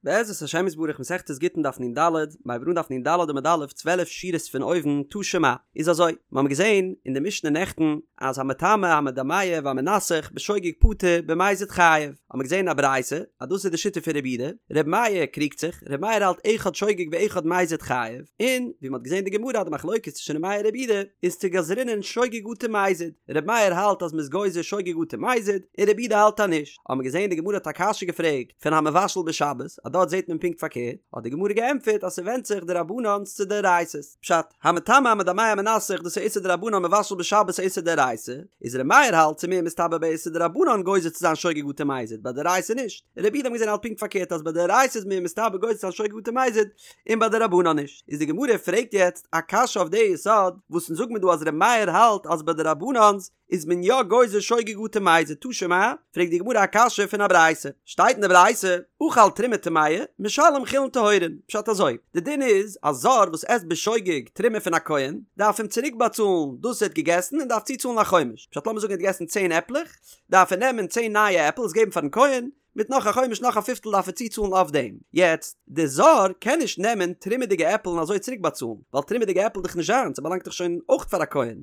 בעזרת השם יתברך מסכת גיטין דף נ ד, מ'הייבט אן דף נ ד עמוד א', 12 שורות פון אויבן, תא שמע, איז אזוי, מיר האבן געזען אין די משנה נעכטן אז המטמא המדמע והמנסך בשוגג פטור במזיד חייב, האבן מיר געזען אין א ברייתא אז דאס איז די שיטה פון רבי יהודה, רבי מאיר קריגט זיך, רבי מאיר האלט אחד שוגג ואחד מזיד חייב, און ווי מ'האט געזען אין די גמרא אז די מחלוקת צווישן רבי מאיר און רבי יהודה איז צו גזרינן שוגג אטו מזיד, רבי מאיר האלט אז מ'איז גוזר שוגג אטו מזיד, און רבי יהודה האלט אז נישט, האבן מיר געזען די גמרא האט א קשיא געפרעגט, פון המבשל בשבת, אז דארט זעט מען פונקט פארקערט, האט די גמרא געענטפערט אז ס'ווענדט זיך דרבנן'ס צו דאורייתא'ס, פשט, המטמא המדמע המנסך דאס איז איסור דרבנן מבשל בשבת איז איסור דאורייתא, איז ר' מאיר האלט ס'מער מסתבר ביי איסור דרבנן גוזר צו זיין שוגג אטו מזיד, ביי דאורייתא נישט, רבי יהודה האט מען געזען האלט פונקט פארקערט אז ביי דאורייתא איז מער מסתבר גוזר צו זיין שוגג אטו מזיד, און ביי דרבנן נישט, איז די גמרא פרעגט יעצט א קשיא אויף די יסוד, וואס אונז זאג מיר דא אז ר' מאיר האלט אז ביי דרבנן'ס איז מען יא גוזר שוגג אטו מזיד תא שמע, פרעגט די גמרא א קשיא פון א ברייתא, שטייט אין די ברייתא, אכל תרומה טמאה, משלם חולין טהורין, פשט אזוי, די דין איז א זר וואס עסט בשוגג תרומה פון א כהן, דארף אים צוריק באצאלן דאס ער האט געגעסן און דארף צוצאלן א חומש, פשט לאמיר זאגן ער האט געגעסן צען עפלעך, דארף ער נעמען צען נייע עפל עס געבן פארן כהן, מיט נאך א חומש נאך א פיפטל דארף ער צוצאלן אויף דעם. יעצט, די זר קען נישט נעמען תרומה'דיגע עפל און אזוי צוריק באצאלן, ווייל תרומה'דיגע עפל איז דאך נישט זיינס, ס'באלאנגט דאך שוין אויך פאר א כהן.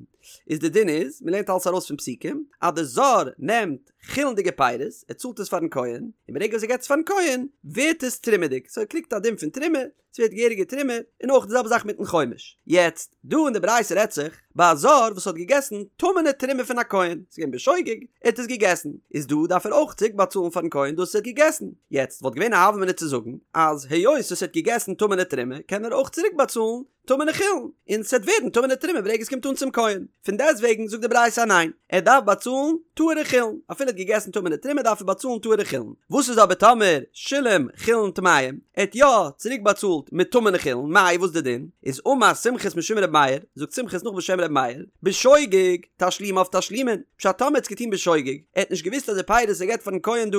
איז די דין איז, מ'לערנט אלעס ארויס פון פסוקים, אז די זר נעמט חולין'דיגע פירות, ער צאלט עס פארן כהן, און ברגע וואס ער געבט עס פארן כהן, ווערט עס תרומה'דיג, סאו ער קריגט א דין פון תרומה, ס'ווערט געהעריגע תרומה, און אויך די זעלבע זאך מיטן חומש. יעצט, דא אין די ברייתא רעדט זיך ביי א זר וואס האט געגעסן טמא'נע תרומה פון א כהן, ס'איז געווען בשוגג, ער האט עס געגעסן, איז דא דארף ער אויך צוריק באצאלן פארן כהן דאס וואס ער האט געגעסן. יעצט, וואלט געווען א הוה אמינא צו זאגן אז היות וואס ער האט געגעסן טמא'נע תרומה קען ער אויך צוריק באצאלן טמא'נע חולין, און ס'וועט ווערן טמא'נע תרומה ברגע עס קומט אן צום כהן. פון דעסטוועגן זאגט די ברייתא אז ניין, ער דארף באצאלן טהור'ע חולין, אפילו ער האט געגעסן טמא'נע תרומה דארף ער באצאלן טהור'ע חולין. וואס איז אבער טאמער שילם חולין טמאים, ער האט יא צוריק באצאלט מיט טמא'נע חולין, מאי וואס די דין? איז אמר סומכוס משום ר' מאיר, זאגט סומכוס נאך בשם ר' מאיר, בשוגג תשלומיו תשלומין, פשט טאמער ער האט עס געטון בשוגג, ער האט נישט געוואוסט אז די פירות ער געבט פארן כהן דא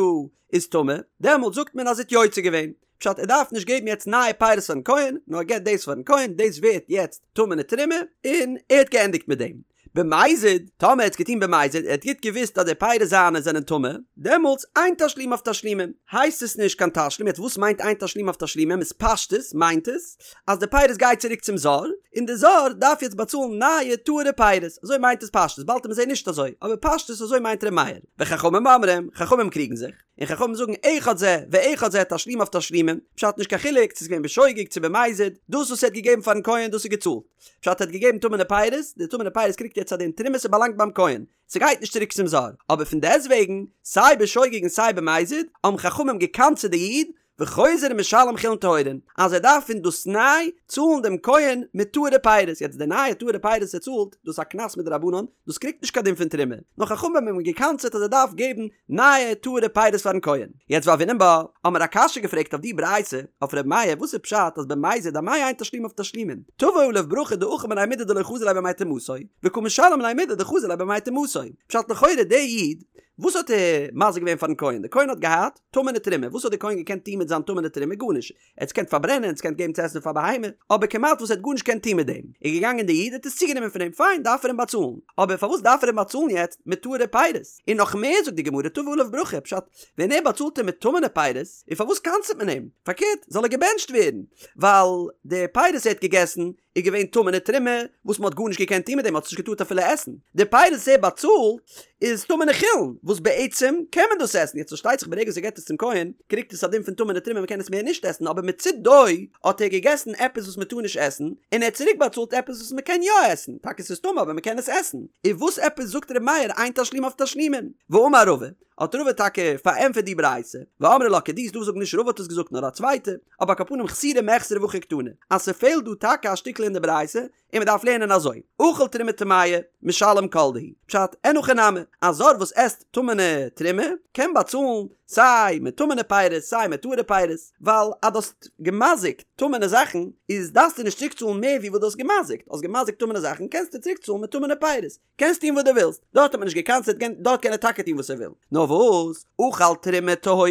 איז טמא, דעמאלט זאגט מען אז ער האט יוצא געווען. פשט ער דארף נישט געבן יעצט נייע פירות פארן כהן, נאר ער געבט דאס פארן כהן, דאס ווערט יעצט טמא'נע תרומה, און ער האט געענדיגט מיט דעם. במזיד, טאמער ער האט עס געטון במזיד, ער האט גוט געוואוסט אז די פירות זיינע זענען טמא, דעמאלטס אין תשלומיו תשלומין, הייסט עס נישט קיין תשלום, יעצט וואס מיינט אין תשלומיו תשלומין, איז פשטות מיינט עס אז די פירות גייט צוריק צום זר, און די זר דארף יעצט באצאלן נייע טהור'ע פירות, אזוי מיינט עס פשטות, באלד וועט מען זעהן נישט אזוי, אבער פשטות אזוי מיינט ר' מאיר. וחכמים אומרים, חכמים קריגן זיך. און חכמים זאגן אחד זה ואחד זה תשלומיו תשלומין, פשט נישט קיין חילוק צו ס'איז געווען בשוגג צו במזיד, דאס וואס ער האט געגעבן פארן כהן דאס איז געצאלט, פשט ער האט געגעבן טמא'נע פירות, די טמא'נע פירות קריגט יעצט א דין תרומה ס'באלאנגט ביים כהן, ס'גייט נישט צוריק צום זר, אבער פון דעסטוועגן סיי בשוגג און סיי במזיד האבן חכמים גע'קנס'עט די איד וחוזר ומשלם חולין טהורין, אז ער דארף פון דאס ניי צאלן דעם כהן מיט טהור'ע פירות, יעצט די נייע טהור'ע פירות ער צאלט, דאס איז א קנס מדרבנן, דאס קריגט נישט קיין דין פון תרומה, נאר חכמים האבן אים גע'קנס'עט אז ער דארף געבן נייע טהור'ע פירות פארן כהן. יעצט והוינן בה, האמער א קשיא געפרעגט אויף די ברייתא, אויף ר' מאיר, וואס איז פשט אז במזיד אמאי אין תשלומיו תשלומין, תבוא עליו ברכה דאכיל מיניה מידי דלא חזי ליה בימי טומאתו, וקא משלם ליה מידי דחזי ליה בימי טומאתו, פשט לכאורה די איד, וואס האט ער מזיק געווען פארן כהן, די כהן האט געהאט, טמא'נע תרומה, וואס האט דער כהן געקענט טון מיט זיין טמא'נע תרומה? גארנישט. ער האט עס געקענט פארברענען, ער האט עס געקענט געבן צו עסן פאר בהמה, אבער כמעט וואס ער האט גארנישט געקענט טון מיט דעם. איז געגאנגען דער איד האט עס צוגענומען פון אים, פיין, דארף ער אים באצאלן. אבער פארוואס דארף ער אים באצאלן יעצט מיט טהור'ע פירות? און נאך מער זאגט די גמרא תבוא עליו ברכה, פשט, ווען ער באצאלט אים מיט טמא'נע פירות, און פארוואס קנס'עט מען אים? פארקערט, זאל ער געבענטשט ווערן, ווייל די פירות ער האט געגעסן, איז געווען טמא'נע תרומה וואס מ'האט גארנישט געקענט טון מיט דעם, מ'האט עס נישט געטארט אפילו עסן. די פירות וואס ער באצאלט איז טמא'נע חולין, וואס בעצם קען מען דאס עסן, יעצט פארשטייט זיך ברגע וואס ער געבט עס צום כהן, קריגט עס א דין פון טמא'נע תרומה מ'קען עס מער נישט עסן, אבער מצידו האט ער געגעסן עפעס וואס מ'טאר נישט עסן, און ער האט צוריק באצאלט עפעס וואס מ'קען יא עסן, טאקע ס'איז טמא אבער מ'קען עס עסן. איז וואס עפעס זאגט ר' מאיר אין תשלומיו תשלומין? ואמר רבא, האט רבא טאקע פארענטפערט די ברייתא, ואמרי לה כדי, ס'דא וואס זאגן נישט רבא האט עס געזאגט נאר א צווייטע, אבער על כל פנים חסורי מחסרא והכי קתני, אז ס'פעלט דא טאקע א שטיקל אין די ברייתא, און מ'דארף לערנען אזוי, אכל תרומה טמאה, משלם כל דהו, פשט, אין הכי נמי, א זר וואס עסט טמא'נע תרומה, קען באצאלן סיי מיט טמא'נע פירות סיי מיט טהור'ע פירות, ווייל אז דו האסט געמזיק'ט טמא'נע זאכן, איז דארפסטו נישט צוריקצאלן מער ווי וואס דו האסט געמזיק'ט, האסט געמזיק'ט טמא'נע זאכן קענסטו צוריקצאלן מיט טמא'נע פירות. קענסט טון וואס דו ווילסט, דארט האט מען נישט געקנס'עט, דארט קען ער טאקע טון וואס ער וויל. נאר וואס, אכל תרומה טהורה,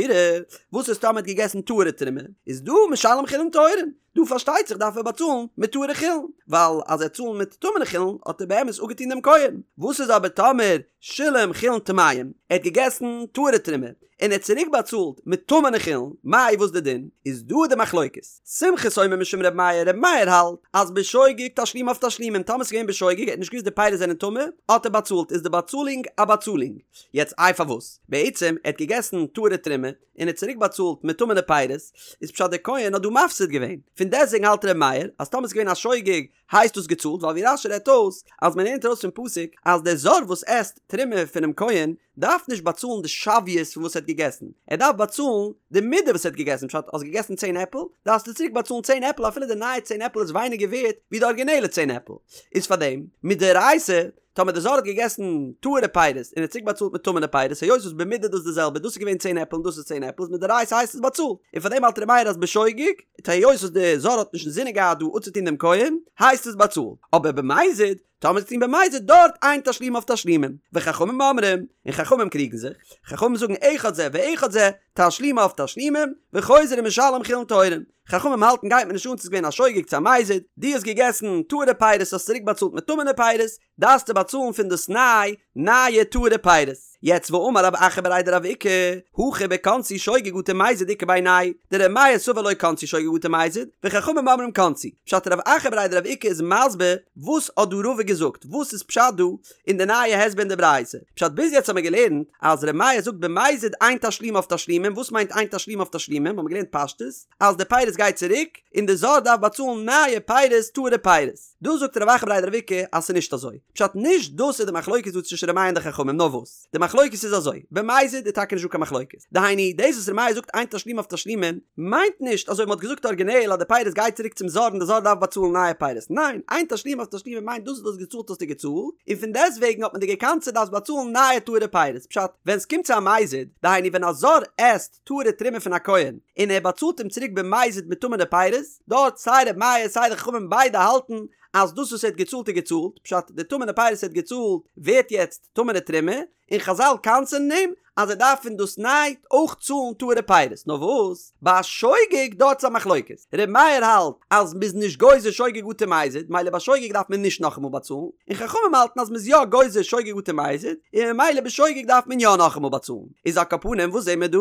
וואס איז טאמער ער האט געגעסן טהור'ע תרומה, איז דא משלם חולין טהורין, דא פארשטייט זיך דארף ער באצאלן מיט טהור'ע חולין, ווייל אז ער צאלן מיט טמא'נע חולין האט ער באמת אפגעטון דעם כהן. וואס איז אבער טאמער שילם חולין טמאים, ער האט געגעסן טהור'ע תרומה, און ער האט צוריק באצאלט מיט טמא'נע חולין, מאי וואס די דין? איז דא די מחלוקת. סומכוס אומר משום ר' מאיר, ר' מאיר האלט אז בשוגג תשלומיו תשלומים, טאמער ס'איז געווען בשוגג, ער האט נישט געוואוסט די פירות זענען טמא, האט ער באצאלט, איז די באצאלונג א באצאלונג. יעצט איי פארוואס? בעצם ער האט געגעסן טהור'ע תרומה, און ער האט צוריק באצאלט מיט טמא'נע פירות, איז פשט דער כהן האט דא מפסיד געווען. פון דעסטוועגן האלט ר' מאיר אז טאמער ס'איז געווען א שוגג הייסט דאס געצאלט, ווייל ווי רש"י רעדט אויס אז מען לערנט ארויס פון פסוק אז דער זר וואס עסט תרומה פונעם כהן דארף נישט באצאלן די שוויות פון וואס ער האט געגעסן, ער דארף באצאלן די מידה וואס ער האט געגעסן, פשט האסט געגעסן צען עפל, דארפסטו צוריק באצאלן צען עפל אפילו די נייע צען עפל איז ווייניגער ווערט ווי די ארגינעלע צען עפל, איז פארדעם מדאורייתא טאמער די זר האט געגעסן טהור'ע פירות און ער האט צוריק באצאלט מיט טמא'נע פירות היות וואס במידה דאס די זעלבע דאס איז געווען צען עפל און דאס איז צען עפל איז מדאורייתא הייסט עס באצאלט און פארדעם האלט ר' מאיר אז בשוגג היות וואס די זר האט נישט אינזינען געהאט דא אפצוטון דעם כהן הייסט עס באצאלט אבער במזיד טאמער ס'איז געטון במזיד דארט אין תשלומיו תשלומים וחכמים אומרים און חכמים קריגן זיך חכמים זאגן אחד זה ואחד זה תשלומיו תשלומים וחוזר ומשלם חולין טהורים חכמים האלטן גייט מיר נישט אן צו ס'איז געווען א שוגג צו א מזיד, דו האסט געגעסן טהור'ע פירות האסט צוריק באצאלט מיט טמא'נע פירות, דארפסטו באצאלן פון דאס ניי נייע טהור'ע פירות. יעצט ואמר רב אחא בריה דרב איקא, הכא בקנסו שוגג אטו מזיד איכא בינייהו דר' מאיר סבר לא קנסו שוגג אטו מזיד, וחכמים אומרים קנסו. פשט רב אחא בריה דרב איקא איז מסביר וואס האט דא רבא געזאגט, וואס איז פשט דא אין די נייע הסבר אין די ברייתא. פשט ביז יעצט האמיר געלערנט אז ר' מאיר זאגט במזיד אין תשלומיו תשלומים, וואס מיינט אין תשלומיו תשלומים? האמיר געלערנט פשטות אז די פירות גייט צוריק און די זר דארף באצאלן נייע פירות טהור'ע פירות. דא זאגט רב אחא בריה דרב איקא אז ס'איז נישט אזוי. פשט נישט דאס איז די מחלוקת דא צווישן ר' מאיר און די חכמים נאר וואס די מחלוקת איז אזוי במזיד איז טאקע נישט דא קיין מחלוקת דהיינו דאס וואס ר' מאיר זאגט אין תשלומיו תשלומים מיינט נישט אזוי ווי מ'האט געזאגט ארגינעל אז די פירות גייט צוריק צום זר און די זר דארף באצאלן נייע פירות, ניין, אין תשלומיו תשלומים מיינט דאס וואס דו האסט געצאלט האסטו געצאלט, און פון דעסטוועגן האט מען דיר געקנס'עט דארפסט באצאלן נייע טהור'ע פירות, פשט, ווען ס'קומט צו א מזיד, דהיינו ווען א זר עסט טהור'ע תרומה פון א כהן, און ער באצאלט אים צוריק במזיד מיט טמא'נע פירות, דארט סיי ר' מאיר סיי די חכמים ביידע האלטן אז דאס וואס ער האט געצאלט איז געצאלט, פשט, די טמא'נע פירות ער האט געצאלט ווערט יעצט טמא'נע תרומה, און חזל קנס'ענען אים אז ער דארף פון דאס ניי אויך צאלן טהור'ע פירות, נאר וואס ביי א שוגג דארט איז א מחלוקת, ר' מאיר האלט אז מ'איז נישט גוזר שוגג אטו מזיד, מילא ביי שוגג דארף מען נישט נאכאמאל באצאלן, און חכמים האלטן אז מ'איז יא גוזר שוגג אטו מזיד, און ממילא בשוגג דארף מען יא נאכאמאל באצאלן, איז על כל פנים וואס זעהן מיר דא?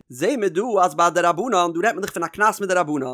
זעהן מיר דא אז ביי דרבנן, דא רעדט מען דאך פון א קנס מדרבנן,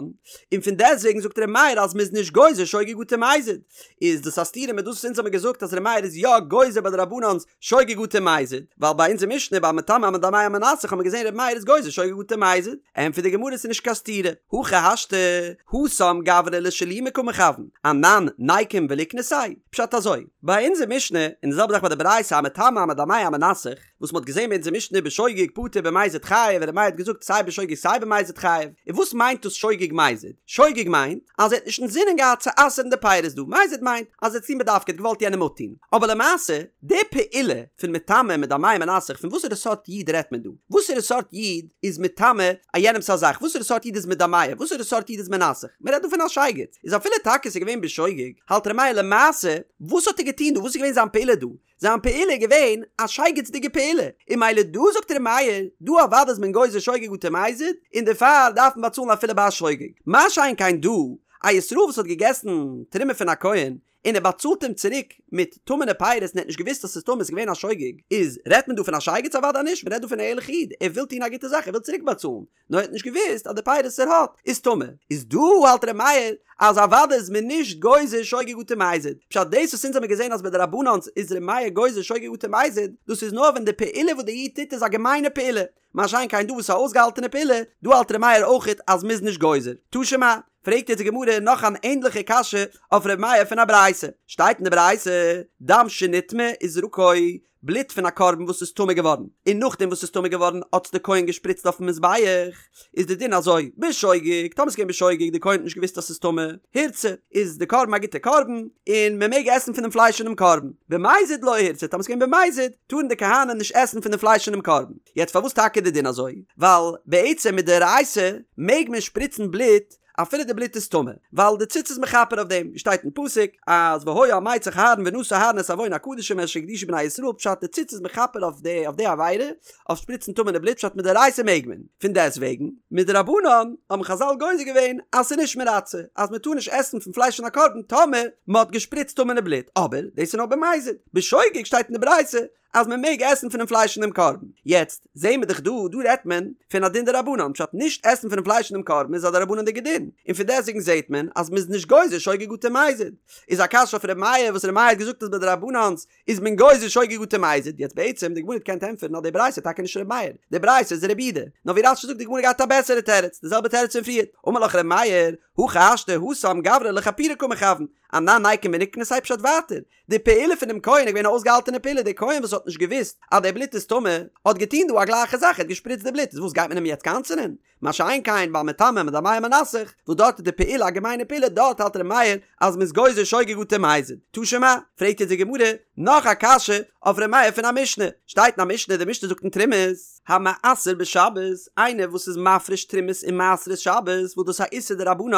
און פון דעסטוועגן זאגט ר' מאיר אז מ'איז נישט גוזר שוגג אטו מזיד, איז דאס א סתירה מיט דאס וואס אונז האמיר געזאגט אז ר' מאיר איז יא גוזר ביי דרבנן'ס שוגג אטו מזיד, ווייל ביי אונזער משנה ביי מטמא המדמע המנסך האמיר געזען ר' מאיר איז גוזר שוגג אטו מזיד, ענטפערט די גמרא ס'איז נישט קיין סתירה, הכי השתא, התם גברא לשלומי קא מכוון, אנן ניקום וליקנסיה, פשט אזוי, ביי אונזער משנה, און די זעלבע זאך ביי די ברייתא המטמא המדמע המנסך, וואס מ'האט געזען ביי אונזער משנה בשוגג פטור במזיד חייב און ר' מאיר האט געזאגט סיי בשוגג סיי במזיד חייב, און וואס מיינט דאס שוגג מזיד? שוגג מיינט אז ער האט נישט אינזינען געהאט צו אסר'ן די פירות דא, מזיד מיינט אז ער האט עס געטון בדווקא, ער האט געוואלט יענעם אפטון. אבער למעשה, די פעולה פון מטמא מדמע מנסך פון וואסערע סארט איד רעדט מען דא? וואסערע סארט איד איז מטמא א יענעמ'ס א זאך? וואסערע סארט איד איז מדמע? וואסערע סארט איד איז מנסך? מ'רעדט דא פון א שייגעץ. איז אפילו טאקע ס'איז געווען בשוגג, האלט ר' מאיר למעשה, וואס האט ער געטון דא? וואס איז געווען זיין פעולה דא? זיין פעולה איז געווען א שייגעצדיגע פעולה, און מילא דא זאגט ר' מאיר, דא אוודאי איז מען גוזר שוגג אטו מזיד, און דערפאר דארף מען באצאלן אפילו ביי א שוגג. מה שאין כן דא, א ישראל וואס האט געגעסן תרומה פון א כהן, און ער באצאלט אים צוריק מיט טמא'נע פירות און ער האט נישט געוואוסט אז ס'איז טמא, ס'איז געווען א שוגג, איז רעדט מען דא פון א שייגעץ? אוודאי נישט, מען רעדט דא פון א ערליכע איד, ער וויל טון א גוטע זאך, ער וויל צוריק באצאלן, נאר ער האט נישט געוואוסט אז די פירות וואס ער האט איז טמא, איז דא האלט ר' מאיר אז אוודאי איז מען נישט גוזר שוגג אטו מזיד, פשט דאס וואס אונז האמיר געזען אז ביי דרבנן'ס איז ר' מאיר גוזר שוגג אטו מזיד, דאס איז נאר ווען די פעולה וואס די איד טוט איז א געמיינע פעולה, מה שאין כן דא וואס איז א אויסגעהאלטענע פעולה, דא האלט ר' מאיר אויכעט אז מ'איז נישט גוזר. תא שמע, פרעגט יעצט די גמרא נאך אן ענדליכע קשיא אויף ר' מאיר פון א ברייתא, שטייט אין די ברייתא, דם שנטמא וזרקו, בלוט פון א קרבן וואס איז טמא געווארן, און נאכדעם וואס ס'איז טמא געווארן האט עס די כהן געשפריצט אויפן מזבח, איז די דין אזוי, בשוגג, טאמער ס'איז געווען בשוגג, די כהן האט נישט געוואוסט אז ס'איז טמא, הורצה, איז די קרבן א גוטע קרבן, און מען מעג עסן פון דעם פלייש פונעם קרבן, במזיד לא הורצה, טאמער ס'איז געווען במזיד, טארן די כהנים נישט עסן פון דעם פלייש פונעם קרבן. יעצט פארוואס טאקע איז די דין אזוי? ווייל בעצם מדאורייתא מעג מען שפריצן בלוט אפילו די בלוט איז טמא, ווייל די ציץ איז מכפר אויף דעם, ווי שטייט אין פסוק אז והיה על מצח אהרן ונשא אהרן את עון הקדשים אשר הקדישו בני ישראל פשט די ציץ איז מכפר אויף די אויף די עבירה, אויף שפריצן טמא'נע בלוט פשט מדאורייתא מעג מען, פון דעסט וועגן מדרבנן האבן חזל גוזר געווען אז ס'איז נישט מרצה אז מ'טאר נישט עסן פון פלייש פון א קרבן טאמער מ'האט געשפריצט טמא'נע בלוט, אבער דאס איז נאר במזיד, בשוגג שטייט אין די ברייתא. אז מען מעג עסן פונעם פלייש פונעם קרבן. יעצט זעהן מיר דאך דא, דא רעדט מען פון א דין דרבנן, פשט נישט עסן פונעם פלייש פונעם קרבן איז א דרבנן'דיגע דין, און פון דעסטוועגן זעהט מען אז מען איז נישט גוזר שוגג אטו מזיד. איז א קשיא אויף ר' מאיר וואס ר' מאיר האט געזאגט אז ביי דרבנן'ס איז מען גוזר שוגג אטו מזיד, יעצט בעצם די גמרא האט געקענט ענטפערן אז די ברייתא איז טאקע נישט ר' מאיר, די ברייתא איז ר' יהודה, נאר ווי רש"י זאגט די גמרא געהאט א בעסערע תירוץ, די זעלבע תירוץ פון פריערט, אמר לך ר' מאיר, הכי השתא התם גברא לכפורי קא מכוון, אנן ניקום וניקנסיה פשט ווייטער, די פעולה פונעם כהן איז געווען א אויסגעהאלטענע פעולה, דער כהן וואס האט נישט געוואוסט אז די בלוט איז טמא, האט געטון דא א גלייכע זאך, ער האט געשפריצט די בלוט, איז וואס גייט מען אים יעצט קנס'ענען? מה שאין כן ביי מטמא מדמע ומנסך, וואס דארט איז די פעולה א געמיינע פעולה, דארט האלט ר' מאיר אז מ'איז גוזר שוגג אטו מזיד. תא שמע, פרעגט יעצט די גמרא נאך א קשיא אויף ר' מאיר פון א משנה, שטייט אין א משנה, די משנה זאגט אין תרומות, המעשר בשבת, איינער וואס איז מפריש תרומות און מעשרות שבת, וואס דאס איז א איסור דרבנן,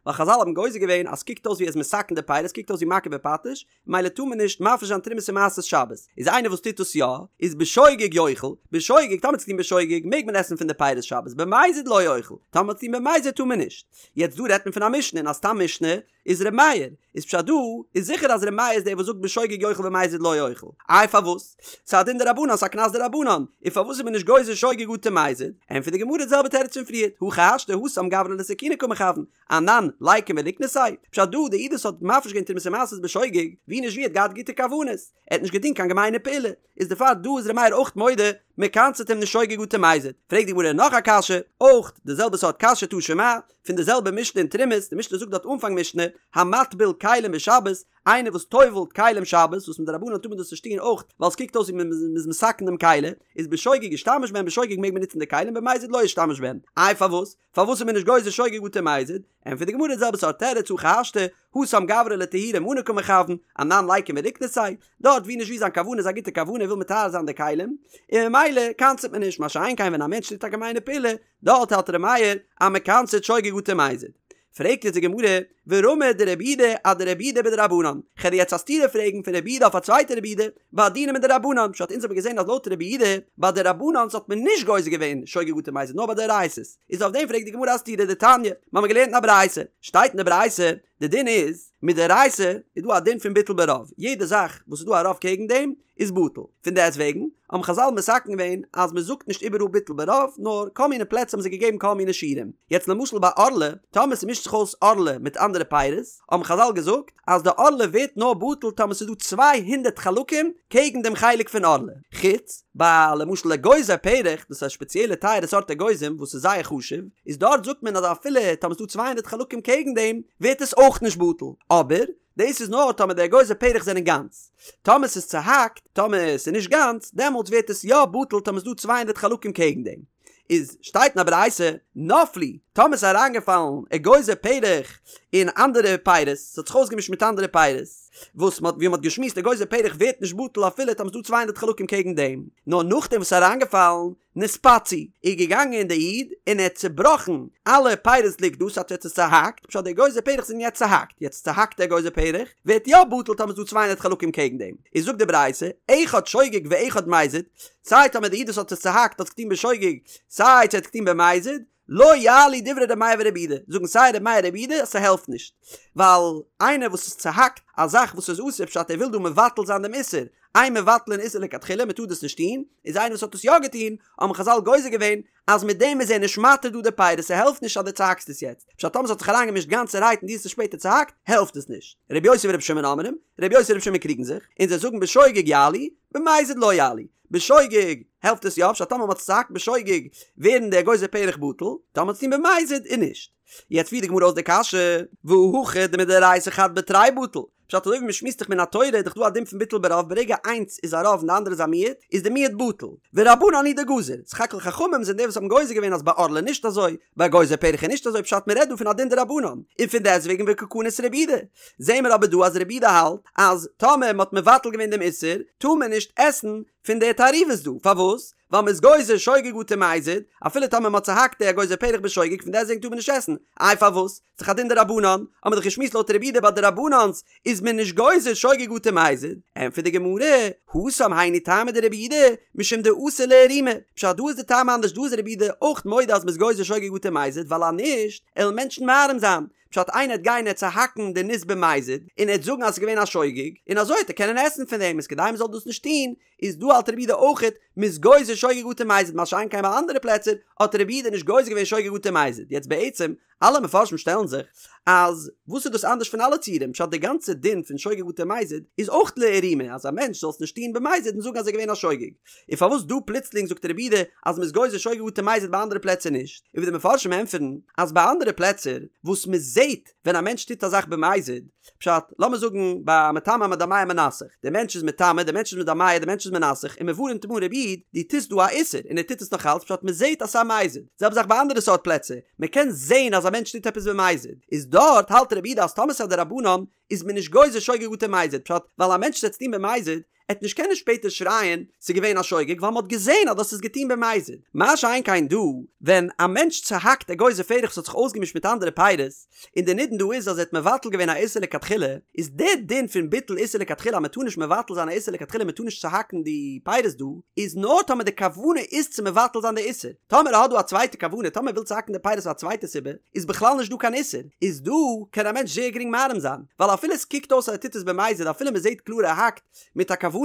ווייל חזל האבן גוזר געווען אז ס'קוקט אויס ווי ער איז מתקן די פירות, קוקט אויס ווי מכה בפטיש, מילא טאר מען נישט מפריש זיין תרומות און מעשרות שבת, איז איינער וואס טוט דאס יא, איז בשוגג יאכל, בשוגג, טאמער האט עס געטון בשוגג, מעג מען עסן פון די פירות שבת, במזיד לא יאכל, טאמער האט עס געטון במזיד טאר מען נישט. יעצט דא רעדט מען פון א משנה, און א סתם משנה איז ר' מאיר, איז פשט דא איז זיכער אז ר' מאיר איז דער וואס זאגט בשוגג יאכל במזיד לא יאכל, איי פארוואס? ס'איז א דין דרבנן, ס'איז א קנס דרבנן, און פארוואס איז מען נישט גוזר שוגג אטו מזיד? ענטפערט די גמרא די זעלבע תירוץ פון פריערט, הכי השתא התם גברא לתקוני קא מכוון, אנן ליקום וליקנסיה, פשט דא די איד וואס האט מפריש געווען תרומות ומעשרות בשוגג, ווי נישט ווי האט געהאט גוטע כוונות, ער האט נישט געטון קיין געמיינע פעולה, איז דערפאר דא איז ר' מאיר אויך מודה, מען קנס'עט אים נישט שוגג אטו מזיד. פרעגט די גמרא נאך א קשיא, אויך די זעלבע סארט קשיא תא שמע, פון די זעלבע משנה אין תרומות, די משנה זאגט דארט אנפאנג משנה, המטביל כלים בשבת, איינער וואס טובל'ט כלים שבת, וואס מדרבנן טאר מען דאס נישט טון אויך ווייל עס קוקט אויס ווי מען איז מתקן דעם כלי, איז בשוגג ישתמש בהן בשוגג מעג מען נוצן די כלים במזיד לא ישתמש בהן. איי פארוואס? פארוואס איז מען נישט גוזר שוגג אטו מזיד? ענטפערט די גמרא די זעלבע סארט תירוץ הכי השתא, התם גברא לטהורי מני קא מכוון, אנן ליקום וליקנסיה, דארט ווי נישט ווי זיין כוונה איז א גוטע כוונה ער וויל מטהר זיין די כלים, און ממילא קנס'עט מען נישט, מה שאין כן ווען א מענטש טוט א געמיינע פעולה, דארט האלט ר' מאיר אז מען קנס'עט שוגג אטו מזיד. פרעגט יעצט די גמרא, ורמי דרבי יהודה אדרבי יהודה בדרבנן, כ'על דיר יעצט א סתירה פרעגן פון רבי יהודה אויף א צווייטע רבי יהודה, ביי דינים מדרבנן, פשט אונז האבן געזען אז לויט רבי יהודה ביי דרבנן'ס האט מען נישט גוזר געווען שוגג אטו מזיד נאר ביי דאורייתא'ס, איז אויף דעם פרעגט די גמרא א סתירה דתניא, מיר האבן געלערנט אין א ברייתא, שטייט אין די ברייתא, די דין איז, מדאורייתא איז דא א דין פון ביטול ברוב, יעדע זאך וואס איז דא א רוב קעגן דעם איז בטל, פון דעסט וועגן האבן חזל מתקן געווען אז מען זאגט נישט איבעראל ביטול ברוב, נאר כל מיני פלעצער האבן זיי געגעבן כל מיני שיעורים, יעצט למשל ביי ערלה, טאמער ס'מישט זיך אויס ערלה מיט אנדערע פירות, האבן חזל געזאגט אז די ערלה ווערט נאר בטל טאמער ס'איז דא 200 חלקים קעגן דעם חלק פון ערלה, חוץ ביי למשל אגוזי פרך, דאס איז א שפעציעלע טייערע סארט אגוזים וואס איז זייער חשוב, איז דארט זאגט מען אז אפילו טאמער ס'איז דא 200 חלקים קעגן דעם ווערט עס אויך נישט בטל, אבער דאס איז נאר טאמער די אגוזי פרך זענען גאנץ, טאמער ס'איז צוהאקט, טאמער ס'איז נישט גאנץ, דעמאלטס ווערט עס יא בטל טאמער ס'איז דא 200 חלקים קעגן דעם. איז שטייט אין א ברייתא, נפלו, טאמער ס'איז אריינגעפאלן אגוזי פרך אין אנדערע פירות, ס'האט זיך אויסגעמישט מיט אנדערע פירות, וואס מ'האט ווי מ'האט געשמועסט אגוזי פרך ווערט נישט בטל אפילו טאמער ס'איז דא צוויי הונדערט חלקים קעגן דעם, נאר נאכדעם וואס ס'איז אריינגעפאלן, נתפצעו, איז געגאנגען די איד און ער האט צובראכן אלע פירות לגדא, ס'הייסט ער האט עס צוהאקט, פשט די אגוזי פרך זענען יעצט צוהאקט, יעצט צוהאקטע אגוזי פרך ווערט יא בטל טאמער ס'איז דא צוויי הונדערט חלקים קעגן דעם, איז זאגט די ברייתא, אחד שוגג ואחד מזיד, סיי טאמער די איד וואס האט עס צוהאקט האט עס געטון בשוגג, סיי צו ער האט עס געטון במזיד, לא יעלו דברי ר' מאיר ור' יהודה, זאגן סיי ר' מאיר ר' יהודה אז ס'העלפט נישט, ווייל איינער וואס איז צוהאקט א זאך וואס איז אסור פשט ער וויל דא מבטל זיין דעם איסור, אין מבטלין איסור לכתחילה מ'טאר דאס נישט טון, איז איינער וואס האט עס יא געטון, האבן חזל גוזר געווען אז מיט דעם איז ער נישט מתיר דא די פירות ס'העלפט נישט אז דו צוהאקסט עס יעצט, פשט טאמער ס'האט זיך אריינגעמישט גאנצערהייט און דו האסט עס שפעטער צוהאקט העלפט עס נישט. רבי יוסי ורבי שמעון אומרים, רבי יוסי און רבי שמעון קריגן זיך, און זיי זאגן בשוגג יעלו, במזיד לא יעלו. בשוגג העלפט עס יא, פשט טאמער מ'האט עס צוהאקט בשוגג ווערן די אגוזי פרך בטל, טאמער מ'האט עס געטון במזיד איז נישט. יעצט פירט די גמרא אויס די קשיא, והא הכא דמדאורייתא חד בתרי בטל, פשט אזוי ווי מ'שמועסט דאך מן התורה איז דאך דא א דין פון ביטול ברוב ברגע איינס איז א רוב און די אנדערע איז א מיעוט איז די מיעוט בטל, ורבנן הוא דגזור, סך הכל חכמים זענען די וואס האבן גוזר געווען אז ביי ערלה נישט אזוי, ביי אגוזי פרך איז נישט אזוי פשט מ'רעדט דא פון א דין דרבנן, און פון דעסטוועגן וקא קניס רבי יהודה. זעהן מיר אבער דא אז רבי יהודה האלט אז טאמער מ'האט מבטל געווען דעם איסור טאר מען נישט עסן פון די תערובות דא, פארוואס? ווייל מ'איז גוזר שוגג אטו מזיד, אפילו טאמער מ'האט צוהאקט די אגוזי פרך בשוגג פון דעסטוועגן טאר מען נישט עסן, איי פארוואס? ס'דאך א דין דרבנן, האמיר דאך געשמועסט לויט רבי יהודה ביי דרבנן'ס איז מען נישט גוזר שוגג אטו מזיד, ענטפערט די גמרא, התם היינו טעמא דרבי יהודה, משום דאתי לאיערומי. פשט דא איז די טעם אנדערש דא איז רבי יהודה אויך מודה אז מ'איז גוזר שוגג אטו מזיד ווייל אז נישט עלן מענטשן מערים זיין. פשט איינער עט גיין עט צוהאקן די ניס במזיד און עט זאגן אז ס'איז געווען א שוגג און אזוי עט ער קענען עסן פון דעם איז כדי מ'זאל דאס נישט טון איז דא האלט רבי יהודה אויכעט מ'איז גוזר שוגג אטו מזיד מה שאין כן ביי אנדערע פלעצער האט רבי יהודה נישט גוזר געווען שוגג אטו מזיד יעצט בעצם אלע מפרשים שטעלן זיך אז וואס איז דאס אנדערש פון אלע ציורים פשט די גאנצע דין פון שוגג אטו מזיד איז אויך לאיערומי אז א מענטש זאל עס נישט טון במזיד און זאגן אז ער איז געווען א שוגג און פארוואס דא פלוצלינג זאגט רבי יהודה אז מ'איז גוזר שוגג אטו מזיד ביי אנדערע פלעצער נישט און ווי די מפרשים ענטפערן אז ביי אנדערע פלעצער וואס מ'זעט ווען א מענטש טוט א זאך במזיד פשט, לאמיר זאגן ביי מטמא מדמע מנסך, דער מענטש איז מטמא, דער מענטש איז מדמע, דער מענטש איז מנסך, און מען ווארענט אים אן רבי איד, דו טוסט דא א איסור, און ער טוט עס נאך אלץ, פשט מען זעט אז ס'איז א מזיד. זעלבע זאך ביי אנדערע סארט פלעצער, מען קען זען אז א מענטש טוט עפעס במזיד, איז דארט האלט רבי יהודה אז טאמער ס'איז א דרבנן, איז מען נישט גוזר שוגג אטו מזיד, פשט, ווייל א מענטש וועט עס טון במזיד, ער וועט נישט קענען שפעטער שרייען ס'איז געווען א שוגג ווייל מ'האט געזען אז דאס איז געטון במזיד. מה שאין כן דא, ווען א מענטש צוהאקט אגוזי פרך וואס האט זיך אויסגעמישט מיט אנדערע פירות, און די נידון דא איז אז ער האט מבטל געווען א איסור לכתחילה, איז די דין פון ביטול איסור לכתחילה אז מ'טאר נישט מבטל זיין א איסור לכתחילה מ'טאר נישט צוהאקן די פירות דא, איז נאר טאמער די כוונה איז צו מבטל זיין די איסור. טאמער ער האט דא א צווייטע כוונה, טאמער ער וויל צוהאקן די פירות פאר א צווייטע סיבה, איז בכלל נישט דא קיין איסור, איז דא קען א מענטש זייער גרינג מערים זיין, ווייל אפילו עס קוקט אויס אז ער טוט עס במזיד אפילו מען זעט קלאר ער האקט מיט א כוונה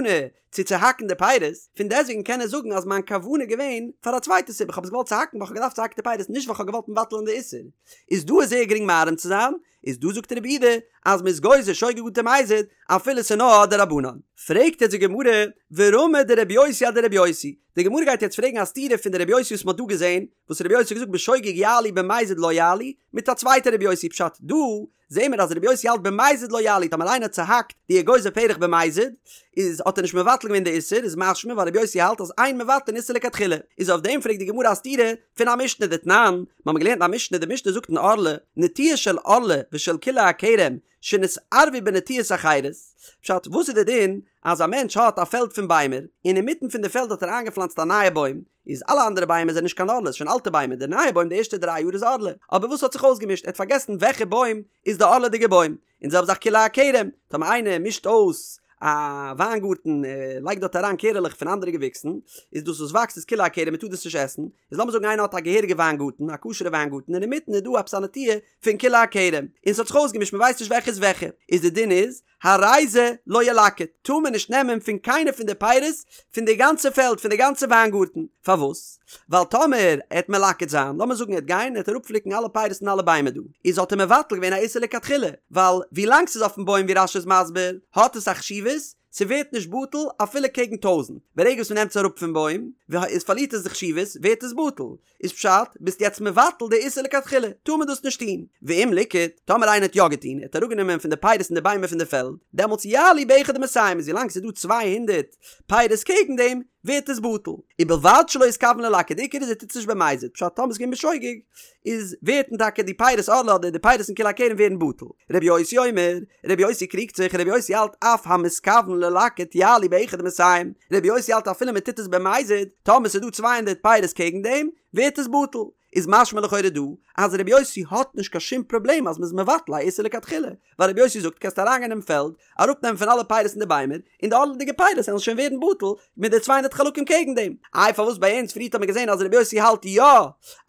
צו צוהאקן די פירות, פון דעסוועגן קען ער זאגן אז מיין כוונה איז געווען פאר א צווייטע סיבה, איך האב עס געוואלט צוהאקן ווייל איך האב געדארפט צוהאקן די פירות נישט ווייל איך האב געוואלט מבטל'ן די איסור, איז דא איז זייער גרינג מערים צו זיין, איז דא זאגט רבי יהודה אז מען איז גוזר שוגג אטו מזיד אפילו ס'איז נאר א דרבנן. פרעגט יעצט די גמרא, ורמי דרבי יוסי אדרבי יוסי, די גמרא גייט יעצט פרעגן א סתירה פון די רבי יוסי וואס מען האט דא געזען, וואס רבי יוסי האט געזאגט בשוגג יעלו במזיד לא יעלו, מיט א צווייטע רבי יוסי פשט דא זעהן מיר אז רבי יוסי האלט במזיד לא יעלו טאמער איינער האט צוהאקט די אגוזי פרך במזיד איז האט ער נישט מבטל געווען די איסור איז משמע ווייל רבי יוסי האלט אז אין מבטלין איסור לכתחילה איז אויף דעם פרעגט די גמרא א סתירה פון א משנה דתנן מיר האבן געלערנט א משנה די משנה זאגט אין ערלה נטיעה של ערלה ושל כלאי הכרם שנתערבו בנטיעות אחרות, פשט, וואס איז די דין אז א מענטש האט א פעלד פון ביימער, און אינמיטן פון די פעלד האט ער איינגעפלאנצט א נייע בוים, איז אלע אנדערע ביימער זענען נישט קיין ערלה, ס'איז שוין אלטע ביימער, די נייע בוים די ערשטע דריי יאר איז ערלה, אבער וואס האט זיך אויסגעמישט, ער האט פארגעסן וועלכע בוים איז די ערלה'דיגע בוים, און די זעלבע זאך כלאי הכרם, טאמער איינער מישט אויס א וויינגארטן, ער לייגט דארט אריין קערעלעך פון אנדערע געוויקסן, איז דאס וואס וואקסט איז כלאי הכרם, מען טאר דאס נישט עסן, איז לאמיר זאגן איינער האט א געהעריגע וויינגארטן, א כשר'ע וויינגארטן, און אינמיטן איז דא עפעס א נטיעה פון כלאי הכרם, און ס'האט זיך אויסגעמישט מ'ווייסט נישט וועלכע איז וועלכע, איז די דין איז, הרי זה לא ילקט, טאר מען נישט נעמען פון קיינע פון די פירות פון די גאנצע פעלד פון די גאנצע וויינגארטן, פארוואס? ווייל טאמער ער העט מלקט זיין, לאמיר זאגן ער העט גיין און ער העט אראפפליקן אלע פירות פון אלע ביימער דא, איז האט ער מבטל געווען א איסור לכתחילה, ווייל ווילאנג ס'איז אויפן בוים ווי רש"י איז מסביר, האט עס א חשיבות, ס'ווערט נישט בטל אפילו קעגן טויזענט, ברגע וואס מ'נעמט עס אראפ פון בוים, איז פארלירט עס די חשיבות, ווערט עס בטל, איז פשט, ביסט יעצט מבטל די איסור לכתחילה, טאר מען דאס נישט טון. ואם ליקט, טאמער איינער האט יא געטון, ער האט אראפגענומען פון די פירות אין די ביימער פון די פעלד, דעמאלטס יעלו באחד ומאתים, איז ווילאנג ס'איז דא 200 פירות קעגן דעם, ווערט עס בטל. ובלבד שלא יתכוון ללקט, די עיקר איז ער טוט עס נישט במזיד, פשט טאמער ס'איז געווען בשוגג, איז ווערטן טאקע די פירות ערלה אדער די פירות אין כלאי הכרם ווערן בטל. רבי יוסי אומר, רבי יוסי קריגט זיך, רבי יוסי האלט אף המתכוון ללקט יעלו באחד ומאתים, רבי יוסי האלט אפילו מען טוט עס במזיד, טאמער ס'איז דא 200 פירות קעגן דעם, ווערט עס בטל. איז משמע לכאורה דא, אז רבי יוסי האט נישט קיין שום פראבלעם אז מ'איז מבטל א איסור לכתחילה, ווייל רבי יוסי זאגט קענסט אריינגיין אין פעלד, אראפנעמען פון אלע פירות אין די ביימער, און די ערלה'דיגע פירות וועלן שוין ווערן בטל מיט די צוויי הונדערט חלקים קעגן דעם. איי פארוואס ביי אונז פריערט האט מען געזען אז רבי יוסי האלט יא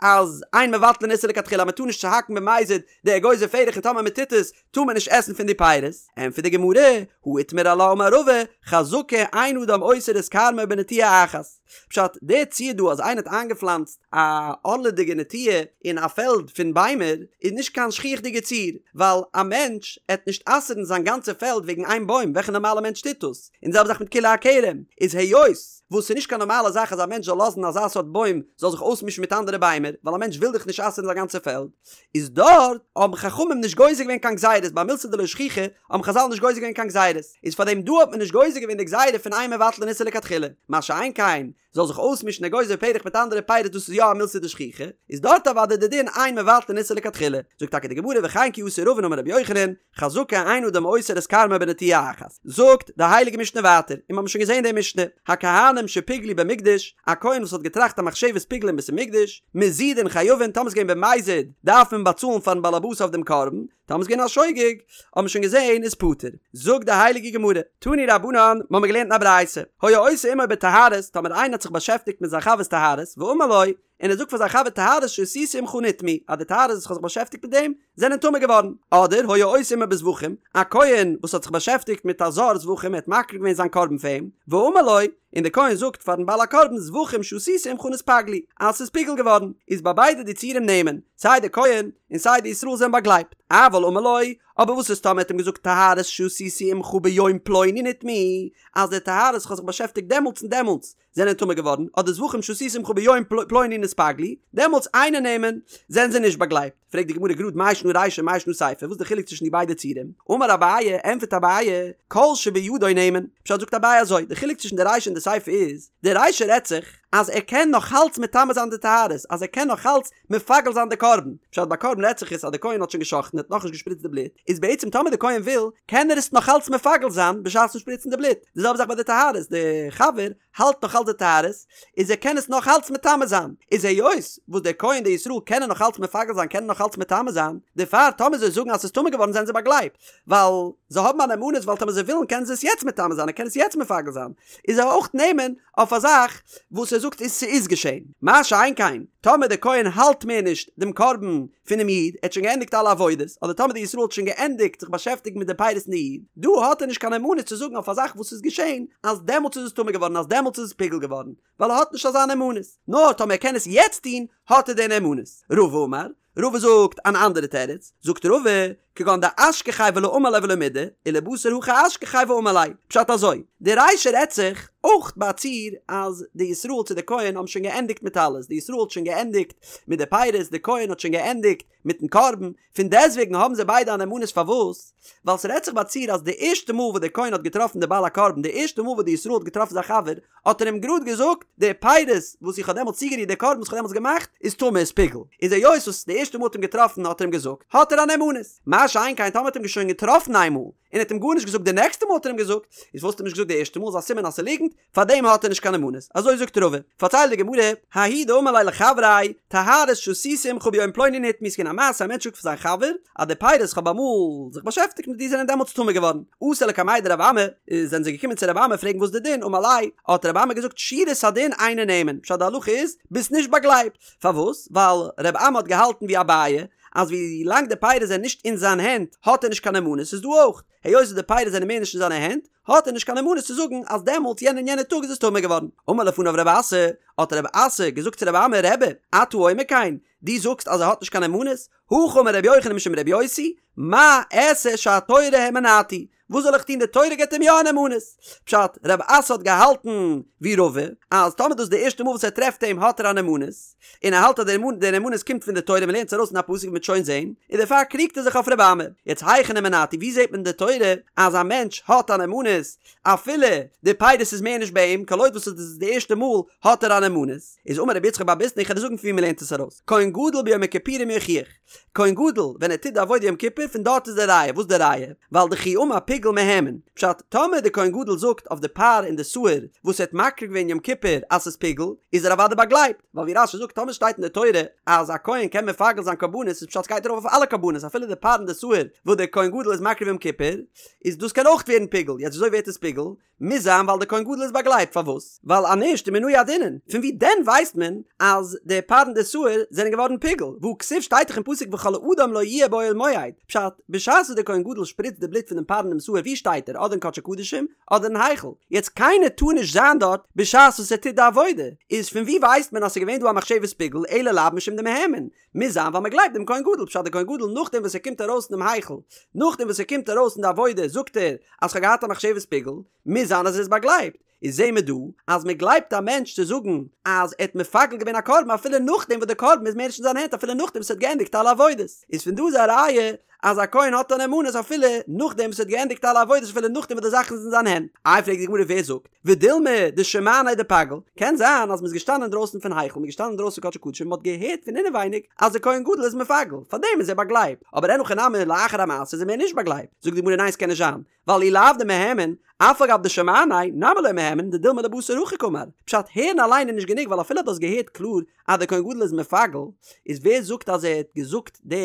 אז אין מבטלין איסור לכתחילה אז מ'טאר נישט צוהאקן במזיד די אגוזי פרך און טאמער מ'טוט עס טאר מען נישט עסן פון די פירות? ענטפערט די גמרא, הא איתמר עלה אמר רבא, חזקה אין אדם אוסר את כרמו בנטיעה אחת. פשט, דער ציור דא אז איינער האט איינגעפלאנצט א ערלה'דיגע נטיעה אין א פעלד פון ביימער איז נישט קיין שכיח'דיגע ציור, ווייל א מענטש עט נישט אסר'ן זיין גאנצע פעלד וועגן איין בוים, וועלכע נארמאלע מענטש טוט דאס? און די זעלבע זאך מיט כלאי הכרם, איז היות וואס ס'איז נישט קיין נארמאלע זאך אז א מענטש זאל לאזן אזא סארט בוים זאל זיך אויסמישן מיט אנדערע ביימער, ווייל א מענטש וויל דאך נישט אסר'ן זיין גאנצע פעלד, איז דארט האבן חכמים נישט גוזר געווען קיין גזירות, ביי מילתא דלא שכיחא האבן חזל נישט גוזר געווען קיין גזירות, איז פאר דעם דא האט מען נישט גוזר געווען די גזירה פון אין מבטלין איסור לכתחילה, מה שאין כן זאל זיך אויסמישן אגוזי פרך מיט אנדערע פירות דאס איז יא א מילתא דשכיחא, איז דארט אוודאי די דין אין מבטלין איסור לכתחילה, זאגט טאקע די גמרא וכן כי אתא רבין אמר רבי יוחנן, חזקה אין אדם אוסר את כרמו בנטיעה אחת, זאגט די הייליגע משנה ווייטער, און מיר האבן שוין געזען די משנה, הכהנים. כהנים שפיגלו במקדש, א כהן וואס האט געטראכט א מחשבת פיגול אין בית המקדש, מזידין חייבין, טאמער ס'איז געווען במזיד דארף מען באצאלן פארן בעלעבאס אויף דעם קרבן, טאמער ס'איז געווען א שוגג, האט מען שוין געזען איז פטור. זאגט די הייליגע גמרא, תנו רבנן, מ'האמיר געלערנט אין א ברייתא, היה עושה עמו בטהרות, טאמער איינער האט זיך באשעפטיגט מיט זיין חבר'ס טהרות, ואמר לו, און ער זאגט פאר זיין חבר טהרות שעשיתי עמך נטמאו, אז די טהרות וואס איך האב זיך באשעפטיגט מיט דעם, זענען טמא געווארן. אדער היה עושה עמו בזבחים, א כהן וואס האט זיך באשעפטיגט מיט א זר זבחים ער האט מקריב געווען זיין קרבן פאר אים, ואמר לו, און דער כהן זאגט פארן בעל הקרבן זבחים שעשיתי עמך נתפגלו, אז ס'איז פיגול געווארן, איז ביי ביידע די ציורים נאמן, סיי דער כהן און סיי די ישראל זענען באגלייבט. אבל אמר לו, אבער וואס איז טאמער ער האט אים געזאגט טהרות שעשיתי עמך ביום פלוני נטמאו, אז די טהרות איך האב זיך באשעפטיגט דעמאלטס און דעמאלטס, זענען טמא געווארן, אדער זבחים שעשיתי עמך ביום פלוני נתפגלו, דעמאלטס אינו נאמן, זענען זיי נישט באגלייבט. פרעגט די גמרא גראד מאי שנא רישא מאי שנא סיפא, וואס איז די חילוק צווישן די ביידע ציורים? אמר אביי, ענטפערט אביי, כל שבידו נאמן. פשט זאגט אביי אזוי, די חילוק צווישן די רישא און די סיפא איז, די רישא רעדט זיך אז ער קען נאכאלץ מטמא זיין די טהרות, אז ער קען נאכאלץ מפגל זיין די קרבן, פשט ביי קרבן רעדט זיך עס אז די כהן האט שוין גע'שחט'ן האט נאכנישט געשפריצט די בלוט, איז בעצם טאמער די כהן וויל קען ער עס נאכאלץ מפגל זיין בשעת'ן שפריצן די בלוט, די זעלבע זאך ביי די טהרות, די חבר האלט נאכאלץ די טהרות, איז ער קען עס נאכאלץ מטמא זיין, איז היות וואס דער כהן די ישראל קענען נאכאלץ מפגל זיין קענען נאכאלץ מטמא זיין, דערפאר טאמער זיי זאגן אז ס'איז טמא געווארן זענען זיי באגלייבט, ווייל זיי האבן א נאמנות ווייל טאמער זיי ווילן קענען זיי עס יעצט מטמא זיין ער קען עס יעצט מפגל זיין, איז ער אויך נאמן אויף א זאך וואס ער זאגט איז ס'איז געשען. מה שאין כן, טאמער דער כהן האלט מער נישט דעם קרבן פונעם איד, ער האט שוין געענדיגט אלע עבודות, אדער טאמער דער ישראל האט שוין געענדיגט זיך באשעפטיגן מיט די פירות פון די איד, דא האט ער נישט קיין נאמנות צו זאגן אויף א זאך וואס איז געשען, אז דעמאלטס איז עס טמא געווארן, אז דעמאלטס איז עס פיגול געווארן, ווייל ער האט נישט אזא נאמנות. נאר טאמער ער קען עס יעצט טון, האט ער די נאמנות. רבא אמר, רבא זאגט אן אנדערע תירוץ, זאגט רבא, כגון דאשכחיה ולא אמר ליה ולא מידי, ולבתר הכי אשכחיה ואמר ליה. פשט אזוי, די רישא רעדט זיך אויך ביי א ציור אז די ישראל צו די כהן האבן שוין געענדיגט מיט אלעס, די ישראל האט שוין געענדיגט מיט די פירות, די כהן האט שוין געענדיגט מיטן קרבן, פון דעסטוועגן האבן זיי ביידע א נאמנות פארוואס? ווייל ס'רעדט זיך ביי א ציור אז די ערשטע מאל וואס דער כהן האט געטראפן די בעל הקרבן, די ערשטע מאל וואס די ישראל האט געטראפן זיין חבר, האט ער אים גראד געזאגט, די פירות וואס איך האב דעמאלטס צוגערירט, די קרבן וואס איך האב דעמאלטס געמאכט, איז טמא, איז פיגול. איז היות וואס די ערשטע מאל האט אים געטראפן האט ער אים געזאגט, האט ער א נאמנות. מה שאין כן טאמער האט אים שוין געטראפן איינמאל, און ער האט אים גארנישט געזאגט די נעקסטע מאל האט ער אים געזאגט, איז וואס האט ער נישט געזאגט די ערשטע מאל איז א סימן אז ס'איז ליגנט, פארדעם האט ער נישט קיין נאמנות. אזוי זאגט רבא. פארציילט די גמרא, ההוא דאמר ליה לחבריה, טהרות שעשיתי עמך ביום פלוני נטמאו ס'איז געווען א מעשה א מענטש זאגט פאר זיין חבר, אז די פירות איך האב אמאל זיך באשעפטיגט מיט דיר זענען דעמאלטס טמא געווארן. אתו לקמיה דרב אמי, זענען זיי געקומען צו רב אמי פרעגן וואס די דין, אמר ליה, האט רב אמי געזאגט שורת הדין אינו נאמן, פשט די הלכה איז, ביסט נישט באגלייבט. פארוואס? ווייל רב אמי האט געהאלטן ווי אביי, אז ווי לאנג די פירות זענען נישט אין זיין הענט האט ער נישט קיין נאמנות, איז דא אויך, היות וואס די פירות זענען מער נישט אין זיינע הענט, האט ער נישט קיין נאמנות צו זאגן אז דעמאלטס יענע און יענע טאג איז עס טמא געווארן. אמר לפניו רב אסי, האט רב אסי געזאגט צו רב אמי, רבי, אתה אומר כן, דו זאגסט אז ער האט נישט קיין נאמנות? הכי אמר רבי יוחנן משום רבי יוסי, מה אעשה שהתורה האמינתו, וואס זאל איך טון די תורה געבט אים יא א נאמנות. פשט, רב אסי האט געהאלטן ווי רבא, אז טאמער דאס איז די ערשטע מאל וואס ער טרעפט אים האט ער א נאמנות, און ער האלט אז די נאמנות קומט פון די תורה, מען לערנט עס ארויס אין א פסוק ווי מ'וועט שוין זען, און דערפאר קריגט ער זיך אויף רבי אמי. יעצט היכן האמינתו, ווי זעט מען אין די תורה אז א מענטש האט א נאמנות אפילו די פירות איז מער נישט ביי אים, כל עוד וואס עס איז די ערשטע מאל האט ער א נאמנות, איז אמר רבי יצחק בר ביסנא איך וועל דיר זאגן פון ווי מען לערנט עס ארויס, כהן גדול ביום הכיפורים יוכיח, כהן גדול ווען ער טוט די עבודה יום כיפור פון דארט איז די ראיה, וואס די ראיה? ווייל דכי אמר פיגול מהימן, פשט, טאמער די כהן גדול זאגט אויף די פר און די שעיר וואס ער האט מקריב געווען יום כיפור אז ס'איז פיגול, איז ער אוודאי באגלייבט, ווייל ווי רש"י זאגט טאמער שטייט אין די תורה אז א כהן קען מפגל זיין קרבנות איז פשט ס'גייט ארויף אויף אלע קרבנות אפילו די פר און די שעיר וואס די כהן גדול איז מקריב יום כיפור, איז דאס קען אויך ווערן פיגול, יעצט וויאזוי ווערט עס פיגול? מוז זיין ווייל דער כהן גדול איז באגלייבט, פארוואס? ווייל אז נישט ומנא ידעינן, פון ווי דען ווייסט מען אז די פר און די שעיר זענען געווארן פיגול? והא כתיב שטייט דאך אין פסוק וכל אדם לא יהיה באוהל מועד, פשט, בשעת וואס דער כהן גדול שפריצט די בלוט פון דעם פר און דעם שעיר ווי שטייט ער? אדער אין קדשי קדשים אדער אין היכל, יעצט קיינער טאר נישט זיין דארט בשעת וואס ער טוט די עבודה, איז פון ווי ווייסט מען אז ס'איז געווען דא א מחשבת פיגול אלא לאו משום דמהימן, מוז זיין ווייל מען גלייבט דעם כהן גדול, פשט דער כהן גדול נאכדעם וואס ער קומט ארויס פונעם היכל, נאכדעם וואס ער קומט ארויס אין די עבודה זאגט ער אז כ'האב געהאט א מחשבת פיגול, מוז זיין אז ער איז באגלייבט, איז זעהן מיר דא אז מען גלייבט א מענטש צו זאגן אז ער האט מפגל געווען א קרבן אפילו נאכדעם וואס דער קרבן איז מער נישט אין זיינע הענט אפילו נאכדעם וואס ער האט געענדיגט אלע עבודות, איז פון דא איז א ראיה אז א כהן האט א נאמנות אפילו נאכדעם וואס ער האט געענדיגט אלע עבודות אפילו נאכדעם וואס די זאכן איז אין זיין הענט. איי פרעגט די גמרא ווער זאגט? ודילמא דשמעניה דפגיל, קען זיין אז מ'איז געשטאנען אינדרויסן פון היכל, מ'איז געשטאנען אינדרויסן קדשי קדשים, מ'האט געהערט פון אינעווייניג אז דער כהן גדול איז מפגל, פארדעם איז ער באגלייבט, אבער אין הכי נמי לאחר המעשה איז ער מער נישט באגלייבט, זאגט די גמרא ניין ס'קען נישט זיין, ווייל אי לאו דמהימן, אף על גב דשמעניה נמי לא מהימן דדילמא לבתר הכי קאמר, פשט הערן אליין איז נישט גענוג ווייל אפילו דו האסט געהערט קלאר אז דער כהן גדול איז מפגל, איז ווער זאגט אז ער האט געזאגט די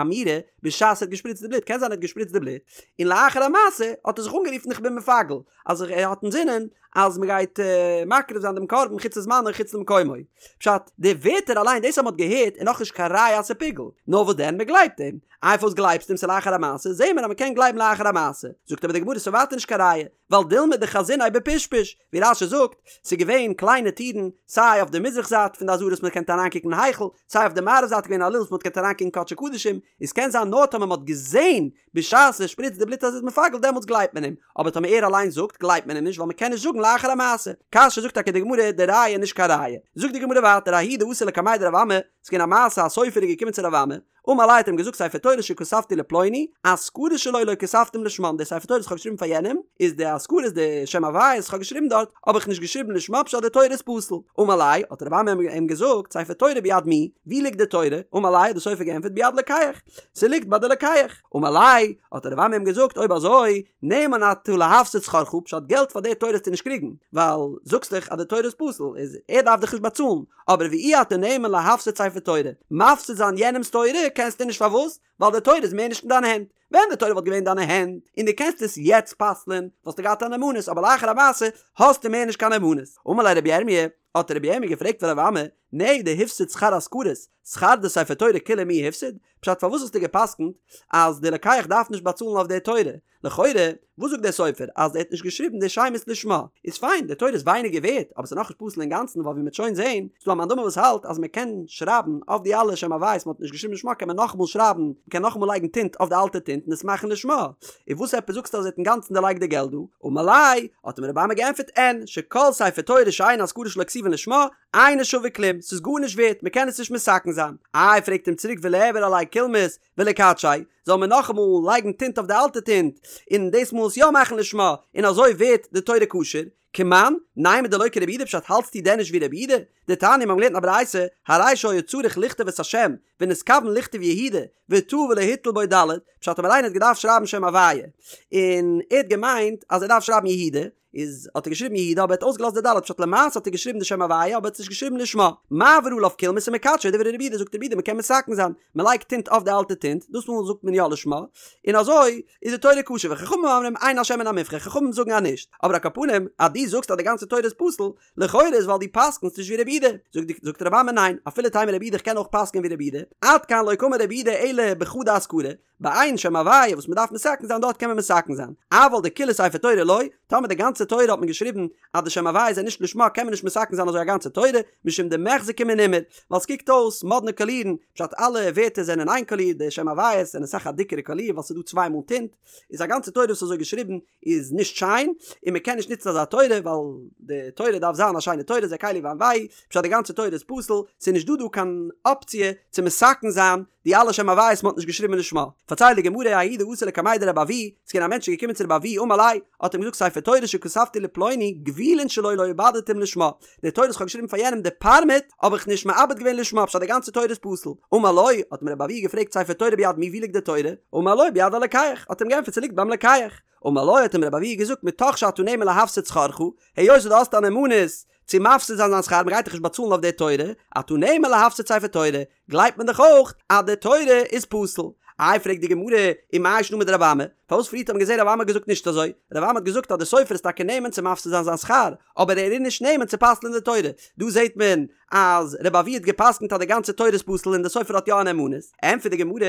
אמירה בשעת ער האט געשפריצט די בלוט, קען זיין ער האט געשפריצט די בלוט און לאחר המעשה האט ער זיך אנגערופן איך בין מפגל, אז ער האט אינזינען אז מען גייט מקריב זיין דעם קרבן חוץ לזמנו חוץ למקומו. פשט, די ווערטער אליין דאס אז מען האט געהערט איז נאכנישט קיין ראיה אז ס'איז פיגול, נאר וואס דען מען גלייבט אים. איי פארוואס גלייבסטו אים ס'איז לאחר המעשה, זעהן מיר אז מען קען גלייבן לאחר המעשה. זאגט אבער די גמרא ס'איז ווייטער נישט קיין ראיה, ווייל דילמא דחזיניה בפשפוש, ווי רש"י זאגט, ס'איז געווען קליינע טירן, סיי אויף די מזרח זייט פון די עזרה וואס מען קען אריינקוקן אין היכל, סיי אויף די מערב זייט איז געווען א לול וואס מען האט געקענט אריינקוקן אין קדשי קדשים, איז קען זיין נאר טאמער מען האט געזעהן בשעת ער שפריצט די בלוט אז ער איז מפגל דעמאלטס גלייבט מען אים, אבער טאמער ער אליין זאגט גלייבט מען אים נישט ווייל מען קען נישט זאגן לאחר המעשה. קשיא זאגט טאקע די גמרא די ראיה איז נישט קיין ראיה. זאגט די גמרא ווייטער ההוא דאתא לקמיה דרב אמי, ס'איז געווען א מעשה א סופר איז געקומען צו רב אמי, אמר ליה האט אים געזאגט ספר תורה שכתבתי לפלוני, אזכרות שלו לא כתבתים לשמן, די ספר תורה וואס כ'האב געשריבן פאר יענעם, איז די אזכרות די שם הוויה וואס כ'האב געשריבן דארט, האב איך נישט געשריבן לשמה פשט די תורה איז פסול. אמר ליה, האט רב אמי אים געזאגט, ספר תורה ביד מי, ווי ליגט די תורה? אמר ליה האט די סופר געענטפערט ביד לוקח, ס'ליגט ביי די לוקח. אמר ליה, האט רב אמי אים געזאגט, אויב אזוי, נאמן אתה להפסיד שכרך, פשט געלט פאר די תורה וועסטו נישט קריגן, ווייל זאגסט דאך אז די תורה איז פסול, איז ער דארף דיך נישט באצאלן, אבער ואי אתה נאמן להפסיד ספר תורה, מפסיד זיין יענעמ'ס תורה קענסטו נישט פארוואס? ווייל די תורה איז מער נישט אין דיינע הענט, ווען די תורה וואלט געווען אין דיינע הענט און דו קענסט עס יעצט פסל'ען וואלסטו געהאט א נאמנות אבער לאחר המעשה האסטו מער נישט קיין נאמנות. אמר ליה רבי ירמי', האט רבי ירמי' געפרעגט פון רב אמי, נהי דהפסיד שכר אזכרות, שכר דספר תורה כוליה מי הפסיד? פשט פארוואס האסטו געפסקנט אז די לוקח דארף נישט באצאלן אויף די תורה? לכאורה, וואס זאגט דער סופר אז ער האט נישט געשריבן די שמות לשמה? איז פיין, די תורה איז ווייניגער ווערט, אבער ס'איז נאכנישט פסול אינגאנצן ווייל ווי מ'וועט שוין זעהן, איז דא א מאן דאמר וואס האלט אז מ'קען שרייבן אויף די אלע שם הוויות מ'האט נישט געשריבן לשמה קען מען נאכאמאל שרייבן, מ'קען נאכאמאל לייגן טינט אויף די אלטע טינט און עס מאכן לשמה. און וואס עפעס זאגסטו אז ער האט אינגאנצן דערלייגט די געלט דא? אמר ליה, האט אים רבי אמי געענטפערט אין, שכל ספר תורה שאין אזכרות שלו כתובין לשמה, אינו שווה כלום, ס'איז גארנישט ווערט, מ'קען עס נישט מתקן זיין. איי פרעגט אים צוריק וליעבור עליה קולמוס, וליקדשיה, זאל מען נאכאמאל לייגן טינט אויף די אלטע טינט, און דאס מאל עס יא מאכן לשמה, און אזוי ווערט די תורה כשר? כמאן, נימא דלא כרבי יהודה פשט האלטסטו דען נישט ווי רבי יהודה? דתניא מיר האבן געלערנט אין א ברייתא, הרי שהיה צריך לכתוב את השם, ונתכוון לכתוב יהודה, וטעה ולא הטיל בו ד', פשט אויב איינער האט געדארפט שרייבן שם הוויה, און ער האט געמיינט אז ער דארף שרייבן יהודה, איז האט ער געשריבן יהודה אבער ער האט אויסגעלאזט די ד' פשט למעשה האט ער געשריבן די שם הוויה אבער ער האט עס נישט געשריבן לשמה. מעביר עליו קולמוס ומקדשו דברי רבי יהודה זאגט רבי יהודה מ'קען מתקן זיין מ'לייגט טינט אויף די אלטע טינט דאס מאל זאגט מען יא לשמה און אזוי איז די תורה כשר וחכמים אומרים אין השם מן המובחר חכמים זאגן אז נישט אבער על כל פנים אז דו זאגסט אז די גאנצע תורה איז פסול לכאורה איז ווייל דו פסק'נסט נישט ווי רבי יהודה זאגט זאגט רבי אמי ניין אפילו תימא רבי יהודה איך קען אויך פסק'ען ווי רבי יהודה עד כאן לא קאמר רבי יהודה אלא בחדא אזכרה ביי איין שם הוויה וואס מען דארף מתקן זיין דארט קען מען מתקן זיין, אבל דכולה ספר תורה לא, טאמער די גאנצע תורה האט מען געשריבן אז די שם הוויה איז נישט לשמה קען מען נישט מתקן זיין אזוי א גאנצע תורה, משום דמיחזי כמנומר, ווייל ס'קוקט אויס מאדנע קאלירן, פשט אלע ווערטער זענען איין קאליר, די שם הוויות זענען אסאך א דיקערע קאליר ווייל ס'איז דא צוויי מאל טינט, איז א גאנצע תורה וואס איז אזוי געשריבן איז נישט שיין, און מען קען נישט נוצן אזא תורה ווייל די תורה דארף זיין א שיינע תורה זה קלי ואנוהו, פשט די גאנצע תורה איז פסול, ס'איז נישט דא דא קיין אפציע צו מתקן זיין די אלע שם הוויות מ'האט נישט געשריבן לשמה. פארציילט די גמרא ההוא דאתא לקמיה דרבי אבהו, ס'איז געווען א מענטש איז געקומען צו רבי אבהו אמר ליה, האט אים געזאגט ספר תורה שכתבתי לפלוני גבולין שלו לא עיבדתים לשמה, די תורה וואס כ'האב געשריבן פאר יענעם די פארמעט האב איך נישט מעבד געווען לשמה פשט די גאנצע תורה איז פסול. אמר לו, האט אים רבי אבהו געפרעגט ספר תורה ביד מי ווי ליגט די תורה? אמר לו ביד הלוקח, האט אים געענטפערט ס'ליגט ביים לוקח. אמר לו האט אים רבי אבהו געזאגט מתוך שאתה נאמן להפסיד שכרך, היות דו האסט א נאמנות צו מפסיד זיין זיין שכר מ'גייט דיך נישט באצאלן אויף די תורה, אתה נאמן להפסיד ספר תורה, גלייבט מען דאך אויך אז די תורה איז פסול. איי פרעגט די גמרא, ומאי שנא מדרבי אמי, פארוואס פריערט האט מען געזען רבי אמי האט געזאגט נישט אזוי, רבי אמי האט געזאגט אז די סופר איז טאקע נאמן צו מפסיד זיין זיין שכר, אבער ער איז נישט נאמן צו פסל'ען די תורה. דא זעט מען אז רבי אבהו האט געפסקנט אז די גאנצע תורה איז פסול און די סופר האט יא א נאמנות. ענטפערט די גמרא,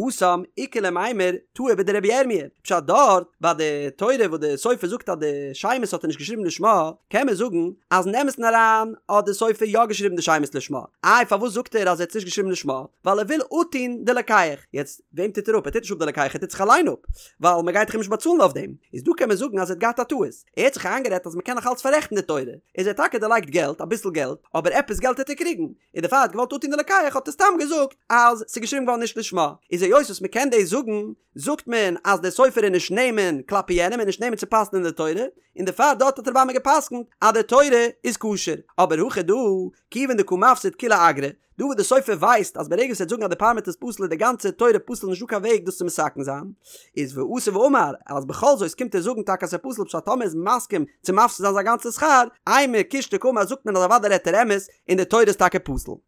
התם איכא למימר טעה בדרבי ירמיה, פשט דארט ביי די תורה וואס די סופר זאגט אז די שמות האט ער נישט געשריבן לשמה, קען מען זאגן אז אין אמת'ן אריין האט די סופר יא געשריבן די שמות לשמה, איי פארוואס זאגט ער אז ער האט עס נישט געשריבן לשמה, ווייל ער וויל אפטון די לוקח, יעצט וועם טוט ער אפ? ער טוט נישט אפ די לוקח ער טוט זיך אליין אפ, ווייל מען גייט דאך אים נישט באצאלן אויף דעם, איז דא קען מען זאגן אז ער האט געהאט א טעות, ער האט זיך איינגערעדט אז מען קען נאך אלץ פאררעכטן די תורה, איז ער האט טאקע דערלייגט געלט, אביסל געלט, אבער עפעס געלט העט ער קריגן, און דערפאר האט געוואלט אפטון די לוקח האט ער סתם געזאגט אז ס'איז געשריבן געווארן נישט לשמה, איז היות וואס מ'קען דאס זאגן, זאגט מען אז דער סופר איז נישט נאמן כלפי יענעם און נישט נאמן צו פסל'ען די תורה, און דערפאר דארט האט רבי אמי געפסקנט אז די תורה איז כשר, אבער הכא דא, כיוון דקא מפסיד כוליה אגרא, דא וואס די סופר ווייסט אז ברגע וואס ער וועט זאגן אז די פארמעט איז פסול איז די גאנצע תורה פסול נישט דא קיין וועג דאס צו מתקן זיין, איז ואתא ואמר אז בכל זאת קומט ער זאגן טאקע אז ס'איז פסול פשט טאמער איז מסכים צו מפסיד זיין זיין גאנצע שכר, אימא קושטא קאמר זאגט מען אז אוודאי רעדט ער אמת און די תורה איז טאקע פסול.